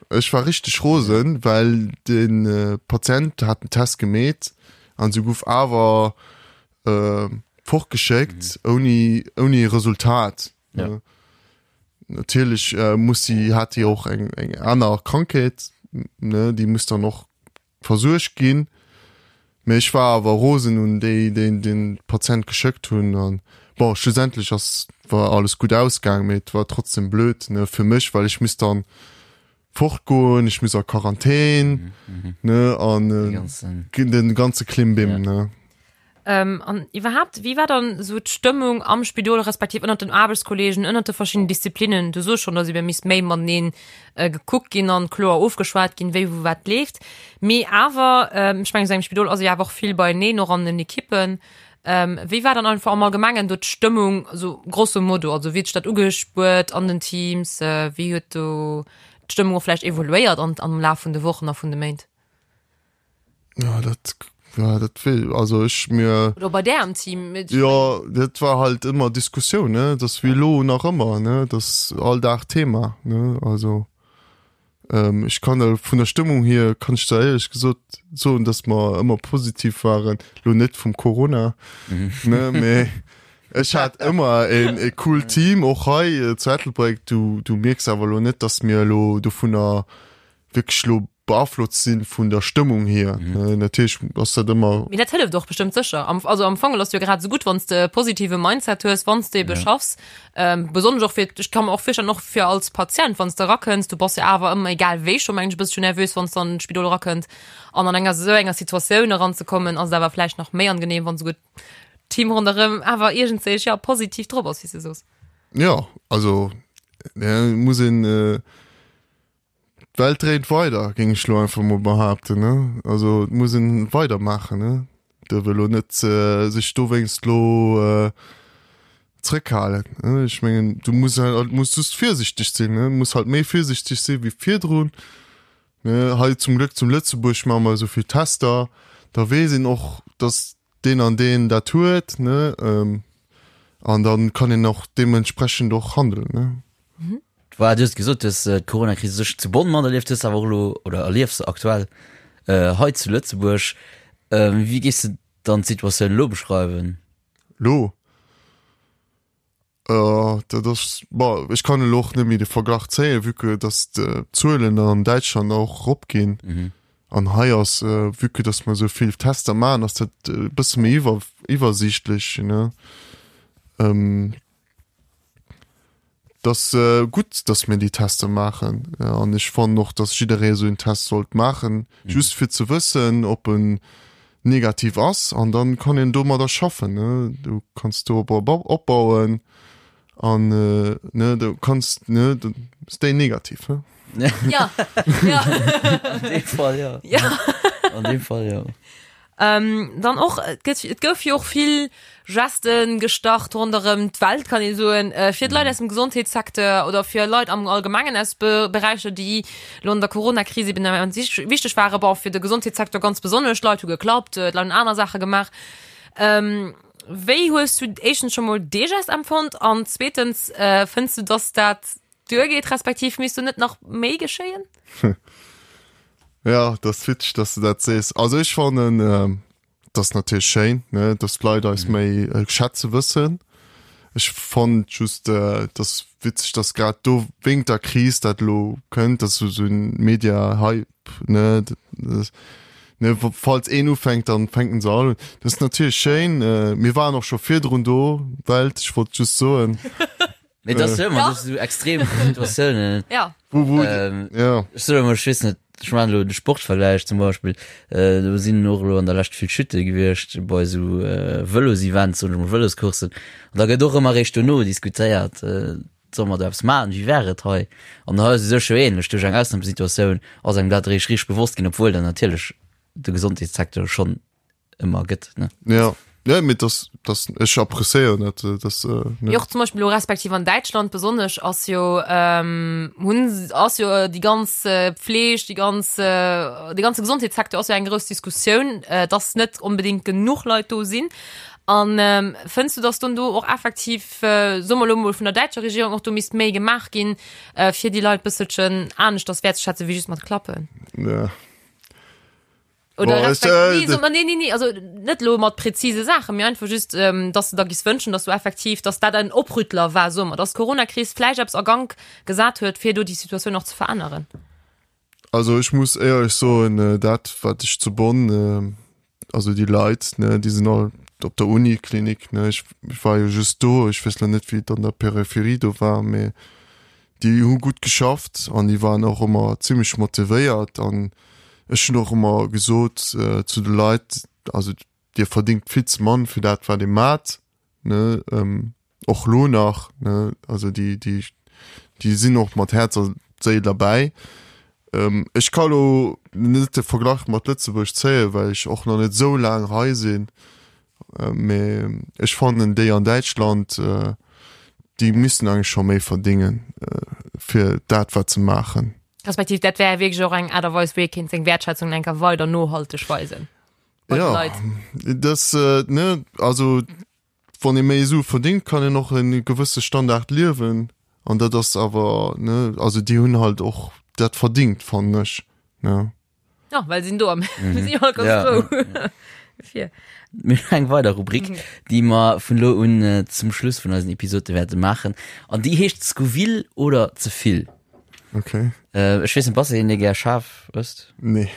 Ech war richteg rosen, well den äh, Patient hat den Test gemeet an se gouf awer äh, fortgeschéckt mhm. ouni ouni Resultat. Ja. Äh, natierlech äh, muss sie hat die och eng eng aner Krankheet, ne, déi muss dann och versuergt ginn. Mee ech war awer rosen un déi, déi den Patient geschéckt hunn an bon, schlussendlech ass war alles gutt ausgaang, mee et war trotzdem blöd, ne, fir mech, well ech misst dann fortgoen, ech muss a Quarantän, ne, an den ganze Klimbim, ne. Ähm, an iwwerhaapt, wéi war dann esou d'Stëmmung am Spidol, respektiv ënnert den Aarbechtskollegen, ënnert de verschiddenen Disziplinnen? Du soos schonn, dass ebe misst méi mateneen äh, gekuckt ginn an kloer ofgeschwat ginn, wéi wou wat leeft. Mee awer, ähm, ech mengen, esou engem Spidol ass ee jo awer och vill beieneen, och an den Ekippen. Ähm, wéi war dann einfach am Allgemengen do d'Stëmmung, esou grosso modo? Also wéi huet sech dat ugespuert an den Teams? Äh, wéi huet do d'Stëmmung och vläicht evoluéiert an, am Laf vun de Wochen a vun de Méint? Ja, dat. Ja, dat wéi, also ech mir. Oder bei där am Team. Jo, dat war halt ëmmer Diskussioun, ne, dat ass wéi elo nach ëmmer, ne, dat ass all Dag Thema, ne, also ähm, ech kann der vun der Stëmmung hier kann ech der éierlech gesot soen, dass mer ëmmer positiv waren, lo net vum Corona, ne, mee ech hat ëmmer een e cool Team, och hei äh, zu Ettelbréck, du, du mierks awer elo net, dass mir elo dovunner wierklech lo beaflosst sinn vun der Stëmmung hier. Mhm. Natierlech ass dat ëmmer. Mee dat hëlleft och bestëmmt sécher. Am, also am Fong ass jo grad esou gutt, wann s de e positive Mindset hues, wann s de ebe ja. schaffs. Ähm, besonnesch och fir, ech kann mer och virstellen, och fir als Patient, wann s de erakënns, du bass jo awer ëmmer, egal wéi scho mengen ech, e bëssche nervös, wann s de an d'Spidol erakënnt. An an enger esou enger Situatioun eranzekommen, ass et awer vläicht nach méi angenehm, wann esouguer d'Team ronderëm awer iergendwéi, ja, positiv drop ass, wéi s de soos. Ja, also, ja, muss een. Äh D'Welt dréint weider, géing ech lo einfach mol behaapten, ne? Also et muss een weidermaachen, ne? Duerf elo net sech dowéinst lo zrëckhalen, ne? Ech mengen, du muss halt, muss just virsichteg sinn, ne? Muss halt méi virsichteg si wéi virdrun, ne? Hei zum Glück zum Lëtzebuerg maache mer esou vill Tester, da weess een och, dass deen an deen dat huet, ne? An da kann een och deementsprechend och handeln, ne? Voilà, du hues gesot, du hues d'Corona-Kris u sech zu Bonn materlieft, hues awer och elo oder erliefs se aktuell hei zu Lëtzebuerg. Wéi géifs de dann d'Situatioun elo beschreiwen? Lo? Dat ass, bon, ech kann elo och net méi de Verglach zéien, vue que datt d'Zuelen an Däitschland och eropginn. An hei ass, vue que datt mer esou vill Tester maachen, ass dat e bësse méi iwwer, iwwersiichtlech, ne. Et ass gutt, dass mir déi Tester maachen. An ech fannen och, dass jidderee esou en Test sollt maachen, just fir ze wëssen, ob en negativ ass. An dann kann een domadder schaffen. Du kanns dorop opbauen an ne, du kanns, ne, stay negativ. Ja, ja. An deem Fall, ja. Ja. An deem Fall, ja. Ähm, dann och, et gëtt, et gouf jo och vill Gesten gestart ronderëm d'Welt, kann ee soen, äh, fir d'Leit aus dem Gesondheetssecteur oder fir Leit am Allgemengen aus Be Beräicher, déi lo an der Corona-Kris eben immens wichteg waren, bon, fir de Gesondheetssecteur ganz besonnesch, d'Leit hu geklappt, d'Leit hunn aner Saache gemaach. Ähm, wéi hues du éischtens scho mol dee Gest empfonnt an zweetens, äh, fënns du, dass dat duergeet, respektiv misst do net nach méi geschéien? Ja, dat ass witzeg, dass du dat sees. Also ech fannen, ähm, dat ass natierlech schéin, ne, dass d'Leit eis mhm. méi äh, schätze wëssen. Ech fand just, äh, das witzeg, dass grad do wéinst der Kris dat lo kënnt, dass so so ein Media-Hype, ne, das, ne, falls een ufänkt, dann fänken se all un. Das ist natierlech schéin. Äh, mir waren och scho virdrun do, Welt, ech wollt just soen. Mee das ja. immer, das so extrem Situatiounen. Ja. Wo, wo, ähm, ja. Ech soe mol, ech weess net, ech man elo de Sportvergläich zum Beispill, äh, do sinn och elo an der Lescht vill Chute gewiescht bei esou äh, Vëlosevents, soen ech mol, Vëloscoursen. An da gëtt och ëmmer eréischt dono diskutéiert, äh, solle mer do eppes maachen, wéi wär et hei? An hei ass et u sech jo ähnlech, duerch eng Ausnamesituatioun ass engem dat eréischt richteg bewosst ginn, obwuel dann natierlech de Gesondheetssecteur schonn ëmmer gëtt ne ja ja mit das das ech appréciéieren dat äh, das äh, ne. Jo, zum Beispiel lo respektiv an Däitschland besonnesch ass jo ähm, hunn ass jo äh, déi ganz äh, Pfleg, déi ganz äh, de ganze Gesondheetssecteur ass jo eng grouss Diskussioun, äh, dass net onbedingt genuch Leit do sinn. An ähm, fënns du, dass dann do och effektiv äh, soe mer lo mol vun der däitscher Regierung och do misst méi gemaach ginn, äh, fir déi Leit bësselchen aneschters wäertzeschätzen wéi just mat Klappen? Ja. Oder Boah, respekt, äh, nee, so, nee, nee, nee, also net lo mat präzise Sachen, mir einfach just, ähm, dass du da gis wënschen, dass du effektiv, dass dat en Oprüttler war, so dass d'Corona-Kris vläicht eppes a Gank gesat huet, fir do déi Situatioun och ze veränneren. Also ech muss éierlech soen, äh, dat wat ech zu Bonn, äh, also déi Leit, ne, déi sinn all op der Uniklinik, ne, ech, ech war jo just do, ech weess lo net wéi et an der Peripherie do war, mee Déi hu gutt geschafft an déi waren och ëmmer zimmlech motivéiert an ech hunn och ëmmer gesot zu de Leit, also dir verdingt vill ze mann fir dat wat dir maacht, ne, och lo nach, ne, also déi déi déi sinn och mat Häerz a Séil derbäi. Ech ka lo net de Verglach mat Lëtzebuerg zéien, well ech och nach net esou laang hei sinn, Mee ech fannen déi an Däitschland, déi missten eigentlech scho méi verdingen fir dat wat se maachen. Respektiv dat wär wierklech och eng Aart a Weis wéi ee kéint seng Wäertschätzung enker weider nohalteg weisen. Bei de Ja, Leit. das, äh, ne, also wann ee méi Sue verdingt, kann een och en gewësse Standard liewen an dat ass awer, ne, also déi hunn halt och dat verdingt, fannen ech, ne. Ja, well sinn do am mm. si all ganz Ja. frou. Fir. Mir hunn eng weider Rubrik, déi mer vun lo un äh, zum Schluss vun eisen Episode wäerte maachen. An déi heescht Scoville oder ze vill. Okay. Äh, ech weess net, bass de een, dee gär schaarf ësst? Nee.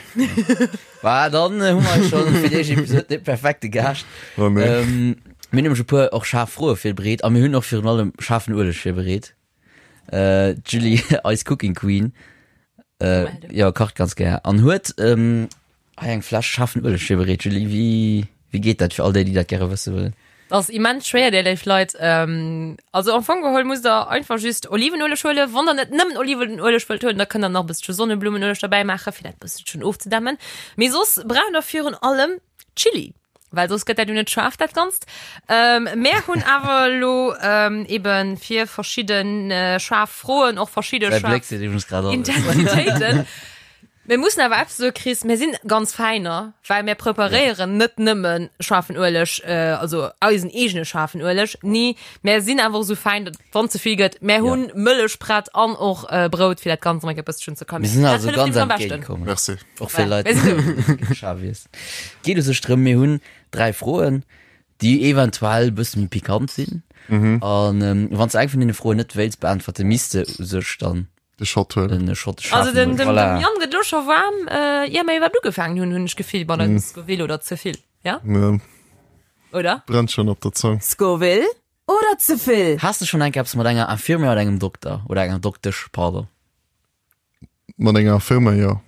Bah, dann äh, hu mer schon fir déi éischt Episode de perfekte Gaascht. Oh, nee. Ähm, mir hunn nämlech e puer och schaarf Froe virbereet a mir hunn och virun allem schaarfen Ueleg virbereet. Äh, d'Julie, eis Cooking Queen, äh, jo, kacht ganz gär an huet ähm, hei eng Fläsch schaarfen Ueleg virbereet. Julie, wéi, wéi geet dat fir all déi, déi dat gäre wësse wëllen? Dat ass immens schwéier, dir léif Leit. Ähm, also am Fong geholl musst der einfach just Olivenueleg huelen. Wann der net nëmmen Olivenueleg wëllt huelen, da kënnt der nach e bësselche Sonneblumenueleg derbäi maachen, fir dat bësselchen ofzedämmen. Mee soss braucht der virun allem Chili, well soss gëtt dat jo net schaarf, dat Ganzt. Ähm, mär hunn awer elo ähm, eben fir verschidden äh, schaarf Froen och verschidde Säi schaarf Bléck seet iwwregens grad alles. Intensitéiten. Mir mussen awer eppes soe Chris, mir sinn ganz Fäiner, well mir preparéieren net nëmme schaarfen Ueleg, also eisen eegene schaarfen Ueleg, nee, mir sinn awer och esou fäin, datt wann ze vill gëtt, mir hunn Mëllech prett an och Brout, fir dat Ganzt nach eng Kéier e bësselchen ze Mir sinn kalméieren. Dat also hëlleft ganz nämlech am beschten. entgéintkomm. Merci. Och fir Voilà, Leit, mir sinn do. déi schaarf iessen. Geet u sech drëm, mir hunn 3 Froen, déi eventuell e bësse méi pikant sinn. An wann s de eng vun deene Froen net wéilts beäntwerten, misst de u sech dann De Shot huelen. Den Shot Also den, den, voilà. dem Jan gëtt lo scho waarm, äh, ier mer iwwerhaapt ugefaangen hunn, hunn ech Gefill, bei mm. Scoville oder ze vill. Ja? Ja. Oder? Brennt schon op der Zong. Scoville oder ze vill? Has de schon eng Kéier eppes mat enger Infirmière oder engem Dokter oder enger Doktesch, pardon? Mat enger Infirmière, jo.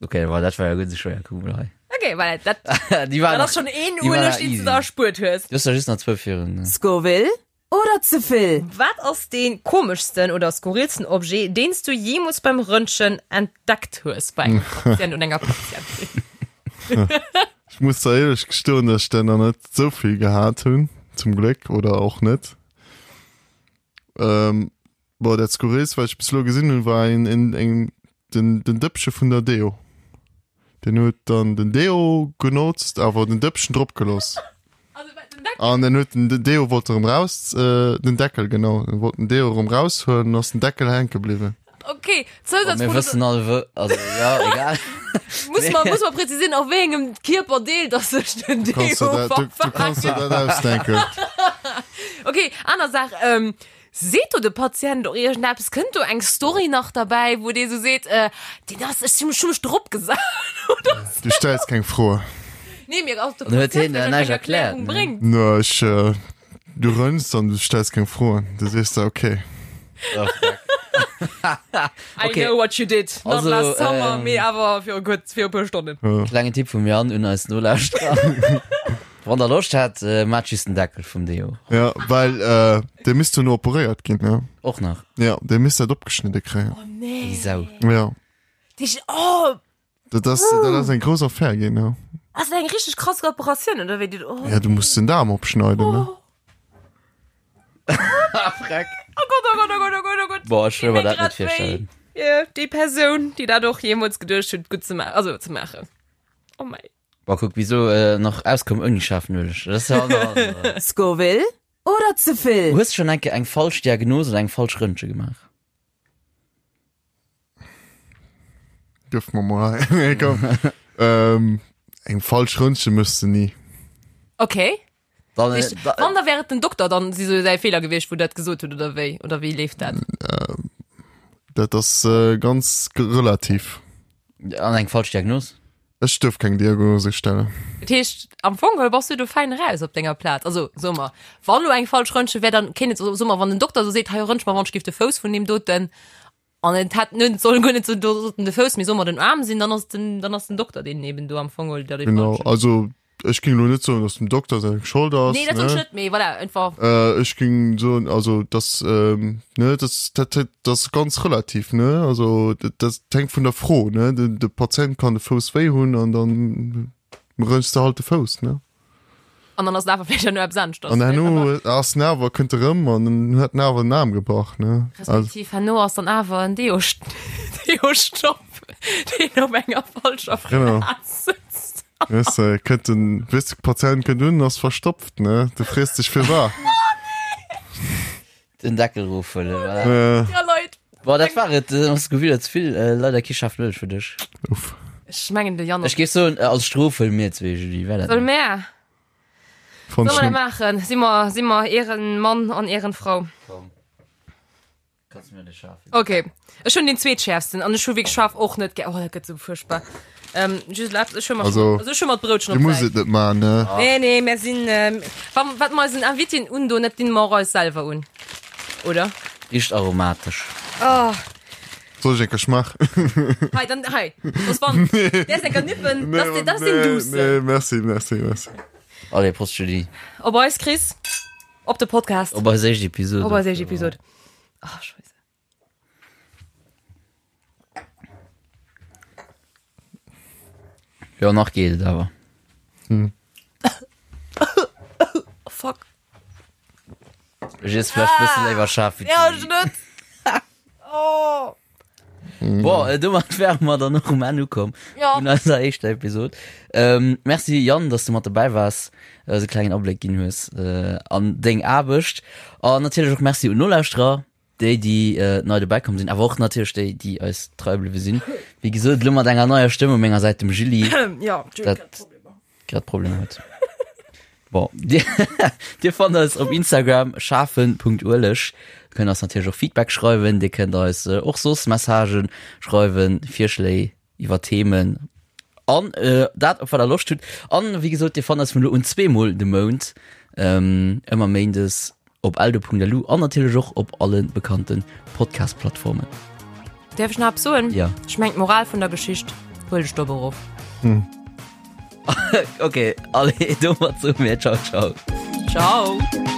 Okay, well dat war ja guer net esou schwéier, kuck mol hei. Okay, well dat, Déi war dat nach, ass schon een déi war Ueleg, nach deen s du easy. der erspuert hues. Du hues der just nach zwou virun. Scoville Oder ze vill? Wat ass dee komeschsten oder skurrilsten Objet, deen s du jeemools beim Röntgen entdeckt hues bei engem Patient oder enger Patientin? Ech muss der éierlech gestoen, dass ech der nach net esou vill gehat hunn, zum Gléck, oder och net. Ähm, bon, dat skurrilst, wat ech bis elo gesinn hunn, war een, een, eng, den, den Dëppche vun der Deo. Den huet dann den Deo genotzt, awer den Dëppchen drop geloss. An dann huet den den Deo wollt erëm raus, äh, den Deckel, genau, en wollt den Deo erëm raushuelen, an ass den Deckel hänke bliwwen. Okay, Oh, mir wëssen all wou, also ja, egal. Muss mer, muss mer präzisieren, auf wéi engem Kierperdeel dass sech den Du Deo kanns der dat, du, du kanns der dat ausdenken. Okay, aner Saach, ähm, Seet do de Patient och iergendeppes? Kënnt do eng Story nach derbäi, wou dee sou seet, äh, deen ass, ech hu mech drop gesat oder sou? Du stells keng Froen. Nee, mir ass de Dann huet Patient hien der vläicht näischt eng erkläert, Erklärung ne? bréngt. No, ech, äh, du rënns an du stells keng Froen. Du sees der, okay. Oh, fuck. I Okay. know what you did, not Also, last summer, ähm, mee awer viru kuerz, viru puer Stonnen. Klengen Tipp vum Jan un eis Nolauschterer. Wann der Loscht hat, äh, maacht just den Deckel vum Deo. Ja, well, äh, dee misst duerno operéiert ginn, ne? Och nach. Ja, dee misst dat opgeschnidde kréien. Oh nee. Déi Sau. Ja. Dich, oh, Dat ass, dat ass eng grouss Affär ginn, ja. ass dat eng richteg krass Operatioun, oder wéi? Die, oh. Ja, du muss den Daarm opschneiden, ne? Oh. Freck. Oh Gott, oh Gott, oh Gott, oh Gott, oh Gott. Boah, ech wëll mer dat net Grad wéi virstellen. fir déi Persoun, déi dat och jeemools geduecht huet, gutt ze maachen, also ze maachen. Oh mei. Boah, kuck, wieso äh, nach auskomm ouni schaarfen Ueleg. Dat ass ja aner. Scoville oder ze vill? Hues schon enke eng falsch Diagnos oder eng falsch Röntge gemaach? Gëff mer mol hei. Nee, komm. ähm, eng falsch Röntgen mëss de ni. Okay. Dann, äh, Ich, da, wann da wäre den Doktor dann si so säi Fehler gewiescht, wou dat gesot huet oder wéi oder wéi leeft dat? Dat ass äh, ganz relativ. an eng falsch Diagnos? Ech duerf keng Diagnose stellen. Dat heescht am Fong geholl bass du do fäin eraus op denger Plaz. Also soe mer, wann lo eng falsch Röntgen wär, dann kéint et soe mer, wann den Dokter sou seet, hei röntg mer wann ech giff de Fouss vun deem doten an et hätt net soll guer net sou do sollten de Fouss, mee soe mer den Aarm sinn, dann ass den dann ass den Dokter deen eben do am Fong geholl der dee Genau, falschen. also ech ging lo net soen, dass dem Dokter seng Schold ass. Nee, dat soll ne? ech net, mee voilà, einfach. Äh, ech ging soen, also das, ähm, ne, das, dat, dat, das ass ganz relativ, ne? Also dat, dat hänkt vun der Fro, ne? De, de Patient kann de Fouss wéi hunn an dann rënchs de halt de Fouss, ne? An dann ass et awer vläicht herno eppes aneschters. An herno ass den awer, kënnt e rëm an dann huet den awer den Aarm gebrach, ne? Also, Respektiv herno ass dann awer en Deo-Stopp, deen op enger falscher Genau. Plaz sëtzt. Weess de, kënnt den, weess de, Patient kënnt un, ass verstopft, ne? Du frees dech firwat. Den Deckel rofhuelen, voilà. Äh, Ja, Leit. Bon, dat war et. Äh, Ass gewidder ze vill. Äh, leider kee schaarfen Ueleg fir dech. uff. Ech mengen de Jan. Ech géif soen, äh, als Strof huele mir zwee, Julie. Wär dat Solle net? mär? Fand Solle ich mer dat net. maachen? Si mer, si mer Ehrenmann an Ehrenfrau? Komm. Kannst mir de schaarfen. Okay. Ech hunn den zweetschäerfsten an ech hu wierklech scharf och net gär. Oh, dat gëtt sou fuerchtbar. Ähm, just erlaabt, ech hu mer Also, also ech hu mer d'Broutchen Dir op musst d'Säit. et net maachen, ne? Nee, nee, mir sinn, ähm, wa, wat mer eisen Invitéen undoen, dat dinn mer och eis selwer un. Oder? Richt aromatesch. Oh. Soll ech eng Kéier schmaachen? Hei, dann, hei. Soss wann, däers eng Kéier nippen, das, das ass den Duussen. Nee, merci, merci, merci. Allez, Prost, Julie. Op eis, Chris. Op de Podcast. Op eis éischt Episode. Op eis éischt Episode. Oh, Scheisse. Jo, nach geet et awer. Hm. Oh, fuck. Ech iess vläicht e bësse léiwer schaarf wéi Ja, ech net. Oh. Bon, äh, domat wäre mer dann och um Enn ukomm Ja. vun eiser éischter Episod. Ähm, merci Yann, dass du mat dobäi waars, eis e klengen Abléck ginn hues äh, an deng Aarbecht. An natierlech och merci un Nolauschterer, déi, déi äh, nei dobäi komm sinn, awer och natierlech déi, déi eis trei bliwwe sinn. Wéi gesot, elo mat enger neier Stëmm u menger Säit, dem Julie. Ja, Dat- grad Problem huet. Bon, dir, dir fannt eis op Instagram schafen.ueleg. Kënnt eis natierlech och Feedback schreiwen, dir kënnt eis äh, och soss Messagen schreiwen, Virschléi iwwer Themen an äh, dat op wat der Loscht hutt. An wéi gesot, dir fannt eis vun elo un zweemol de Mount, ähm, ëmmer méindes Op eldo.lu an natierlech och op alle bekannte Podcast-Plattformen. Däerf ech nach eppes soen? Ja. Ech mengen d'Moral vun der Geschicht, huel dech dob erof. Ok, allez, domat soe mir Ciao, ciao. Ciao.